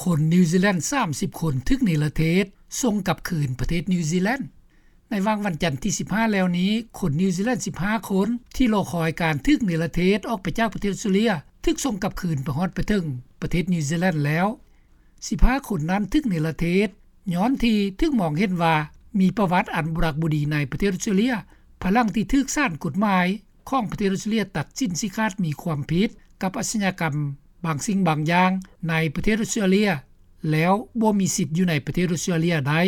ຄົນນິວຊີແລນ ສາມສິບຄົນ ຖືກເນລະເທດ ສົ່ງກັບຄືນປະເທດນິວຊີແລນ. ໃນວັນຈັນທີ ສິບຫ້າ ແລ້ວນີ້ ຄົນນິວຊີແລນ ສິບຫ້າຄົນ ທີ່ລໍຄອຍການຖືກເນລະເທດ ອອກໄປຈາກປະເທດອອສເຕຣເລັຽ ຖືກສົ່ງກັບຄືນໄປຮອດໄປເຖິງປະເທດນິວຊີແລນແລ້ວ. ສິບຫ້າຄົນນັ້ນ ຖືກເນລະເທດ ຍ້ອນທີ່ຖືກມອງເຫັນວ່າ ມີປະຫວັດອັນບໍ່ດັກບໍ່ດີໃນປະເທດອອສເຕຣເລັຽ ພາຍຫຼັງທີ່ຖືກສານກົດໝາຍຂອງປະເທດອອສເຕຣເລັຽ ຕັດສິນຊີ້ຂາດມີຄວາມຜິດ ກັບອາຊຍາກຳບາງສິ່ງບາງຢ່າງ ໃນປະເທດອອສເຕຣເລັຽ ແລ້ວບໍ່ມີສິດຢູ່ໃນປະເທດອອສເຕຣເລັຽໄດ້.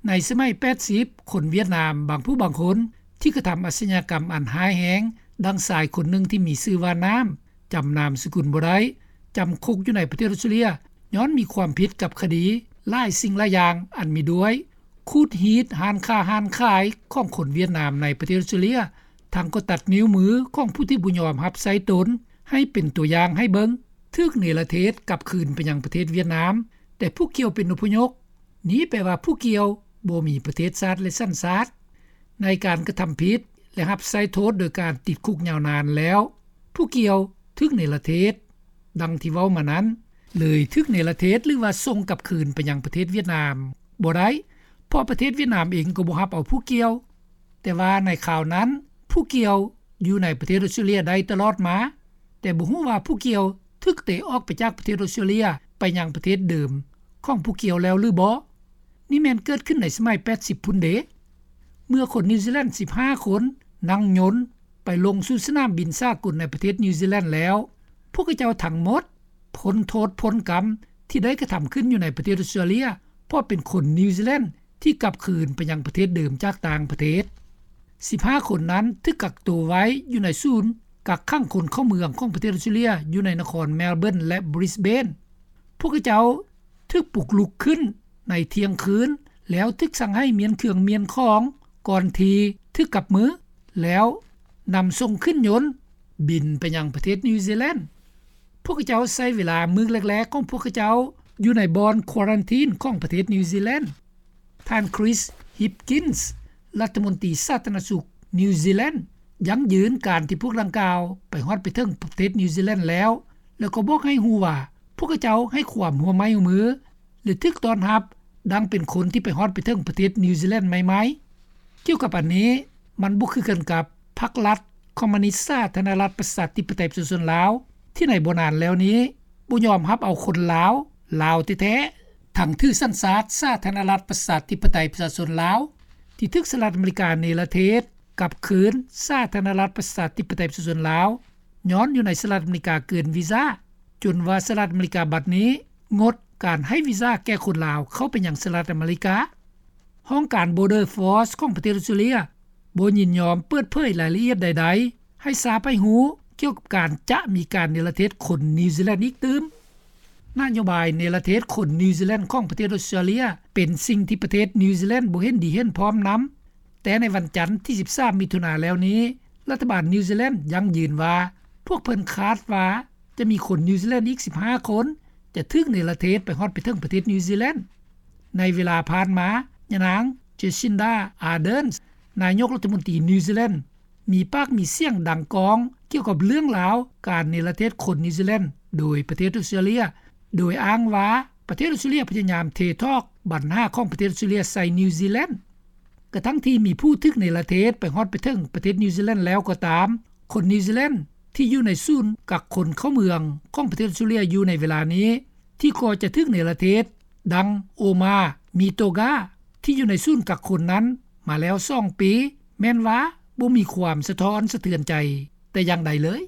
ໃນສະໄໝ ແປດສິບ ຄົນຫວຽດນາມ ບາງຜູ້ບາງຄົນ ທີ່ກະທຳອາຊຍາກຳອັນຮ້າຍແຮງ ດັ່ງຊາຍຄົນໜຶ່ງ ທີ່ມີຊື່ວ່າ ນ້ຳ ຈຳນາມສະກຸນບໍ່ໄດ້ ຈຳຄຸກຢູ່ໃນປະເທດອອສເຕຣເລັຽ ຍ້ອນມີຄວາມຜິດກັບຄະດີ ຫຼາຍສິ່ງຫຼາຍຢ່າງ ອັນມີດ້ວຍ ຂູດຮີດຮ້ານຄ້າຮ້ານຂາຍ ຂອງຄົນຫວຽດນາມ ໃນປະເທດອອສເຕຣເລັຽ ທັງກໍຕັດນິ້ວມື ຂອງຜູ້ທີ່ບໍ່ຍອມຮັບໃຊ້ຕົນ ໃຫ້ເປັນຕົວຢ່າງໃຫ້ເບິ່ງ ຖືກເນລະເທດກັບຄືນໄປຍັງປະເທດຫວຽດນາມ ແຕ່ຜູ້ກ່ຽວເປັນອົບພະຍົບ ນີ້ແປວ່າຜູ້ກ່ຽວບໍ່ມີປະເທດຊາດ ແລະ ສັນຊາດ. ໃນການກະທຳຜິດ ແລະ ຮັບໃຊ້ໂທດໂດຍການຕິດຄຸກຍາວນານແລ້ວ ຜູ້ກ່ຽວຖືກເນລະເທດ ດັ່ງທີ່ເວົ້າມານັ້ນ ເລີຍຖືກເນລະເທດ ຫຼືວ່າສົ່ງກັບຄືນໄປຍັງປະເທດຫວຽດນາມບໍ່ໄດ້ ເພາະປະເທດຫວຽດນາມເອງກໍບໍ່ຮັບເອົາຜູ້ກ່ຽວ. ແຕ່ວ່າໃນຄາວນັ້ນ ຜູ້ກ່ຽວຢູ່ໃນປະເທດອອສເຕຣເລັຽໄດ້ຕະຫຼອດມາ ແຕ່ບໍ່ຮູ້ວ່າຜູ້ກ່ຽວຖືກເຕະອອກໄປຈາກປະເທດອອສເຕຣເລັຽ ໄປຍັງປະເທດເດີມຂອງຜູ້ກ່ຽວແລ້ວຫຼືບໍ່. ນີ້ແມ່ນເກີດຂຶ້ນໃນສະໄໝ ແປດສິບ ພຸ້ນເດ ເມື່ອຄົນນິວຊີແລນ ສິບຫ້າຄົນ ນັ່ງຍົນໄປລົງສູ່ສະໜາມບິນສາກົນໃນປະເທດນິວຊີແລນແລ້ວ ພວກເຂົາເຈົ້າທັງໝົດ ພົ້ນໂທດພົ້ນກຳ ທີ່ໄດ້ກະທຳຂຶ້ນຢູ່ໃນປະເທດອອສເຕຣເລັຽ ເພາະເປັນຄົນນິວຊີແລນ ທີ່ກັບຄືນໄປຍັງປະເທດເດີມຈາກຕ່າງປະເທດ. ສິບຫ້າຄົນນັ້ນຖືກກັກໂຕໄວ້ຢູ່ໃນສູນກັກຂັງຄົນເຂົ້າເມືອງຂອງປະເທດອອສເຕຣເລັຽ ຢູ່ໃນນະຄອນແມລເບີນ ແລະ ບຣິສເບນ. ພວກເຂົາເຈົ້າຖືກປຸກລຸກຂຶ້ນໃນທ່ຽງຄືນ ແລ້ວຖືກສັ່ງໃຫ້ມ້ຽນເຄື່ອງມ້ຽນຂອງ ກ່ອນທີ່ຖືກກັບມື ແລ້ວນຳສົ່ງຂຶ້ນຍົນບິນໄປຍັງປະເທດນິວຊີແລນ. ພວກເຂົາເຈົ້າໃຊ້ເວລາມື້ແລກໆຂອງພວກເຂົາເຈົ້າຢູ່ໃນບ່ອນຄວາຣັນທີນຂອງປະເທດນິວຊີແລນ. ທ່ານ Chris Hipkins ລັດຖະມົນຕີສາທາລະນະສຸກນິວຊີແລນ ຢັ້ງຢືນການທີ່ພວກດັ່ງກ່າວໄປຮອດໄປເຖິງປະເທດນິວຊີແລນແລ້ວ ແລ້ວກໍບອກໃຫ້ຮູ້ວ່າ ພວກເຂົາເຈົ້າໃຫ້ຄວາມຮ່ວມໄມ້ຮ່ວມມື ແລະ ຖືກຕ້ອນຮັບດັ່ງເປັນຄົນທີ່ໄປຮອດໄປເຖິງປະເທດນິວຊີແລນໃໝ່ໆ. ກ່ຽວກັບອັນນີ້ ມັນບໍ່ຄືກັນກັບພັກລັດຄອມມູນິດສາທາລະນະລັດປະຊາທິປະໄຕປະຊາຊົນລາວ ທີ່ໃນບໍ່ນານແລ້ວນີ້ ບໍ່ຍອມຮັບເອົາຄົນລາວ ລາວແທ້ໆ ທັງຖືສັນຊາດສາທາລະນະລັດປະຊາທິປະໄຕປະຊາຊົນລາວ ທີ່ຖືກສະຫະລັດອາເມລິກາເນລະເທດກັບຄືນສາທາລະນະລັດປະຊາທິປະໄຕປະຊາຊົນລາວ ຍ້ອນຢູ່ໃນສະຫະລັດອາເມລິກາເກີນວີຊາ ຈົນວ່າສະຫະລັດອາເມລິກາບັດນີ້ງົດການໃຫ້ວີຊາແກ່ຄົນລາວເຂົ້າໄປຍັງສະຫະລັດອາເມລິກາ. ຫ້ອງການ Border Force ຂອງປະເທດອອສເຕຣເລັຽ ບໍ່ຍິນຍອມເປີດເຜີຍລາຍລະອຽດໃດໆ ໃຫ້ຊາວໂລກຮູ້ກ່ຽວກັບການຈະມີການເນລະເທດຄົນນິວຊີແລນອີກຕື່ມ. ນະໂຍບາຍເນລະເທດຄົນນິວຊີແລນຂອງປະເທດອອສເຕຣເລັຽ ເປັນສິ່ງທີ່ປະເທດນິວຊີແລນບໍ່ເຫັນດີເຫັນພ້ອມນຳ. ແຕ່ໃນວັນຈັນທີ ສິບສາມ ມິຖຸນາແລ້ວນີ້ ລັດຖະບານນິວຊີແລນຢັ້ງຢືນວ່າ ພວກເພິ່ນຄາດວ່າຈະມີຄົນນິວຊີແລນອີກ ສິບຫ້າຄົນ ຈະຖືກເນລະເທດໄປຮອດໄປເຖິງປະເທດນິວຊີແລນ. ໃນເວລາຜ່ານມາ ຍານາງ Jacinda Ardern ນາຍົກລັດຖະມົນຕີນິວຊີແລນ ມີປາກມີສຽງດັງກ້ອງກ່ຽວກັບເລື່ອງລາວການເນລະເທດຄົນນິວຊີແລນໂດຍປະເທດອອສເຕຣເລັຽ ໂດຍອ້າງວ່າປະເທດອອສເຕຣເລັຽພະຍາຍາມເທຖອກບັນຫາຂອງປະເທດອອສເຕຣເລັຽໃສ່ນິວຊີແລນ. ກະທັ່ງທີ່ມີຜູ້ຖືກເນລະເທດໄປຮອດໄປເຖິງປະເທດນິວຊີແລນແລ້ວກໍຕາມ, ຄົນນິວຊີແລນທີ່ຢູ່ໃນສູນກັກຄົນເຂົ້າເມືອງຂອງປະເທດອອສເຕຣເລັຽຢູ່ໃນເວລານີ້ ທີ່ກໍຈະຖືກເນລະເທດ ດັ່ງ Oma Mithoga ທີ່ຢູ່ໃນສູນກັກຄົນນັ້ນມາແລ້ວສອງປີ ແມ່ນວ່າບໍ່ມີຄວາມສະທ້ອນສະເທືອນໃຈແຕ່ຢ່າງໃດເລີຍ.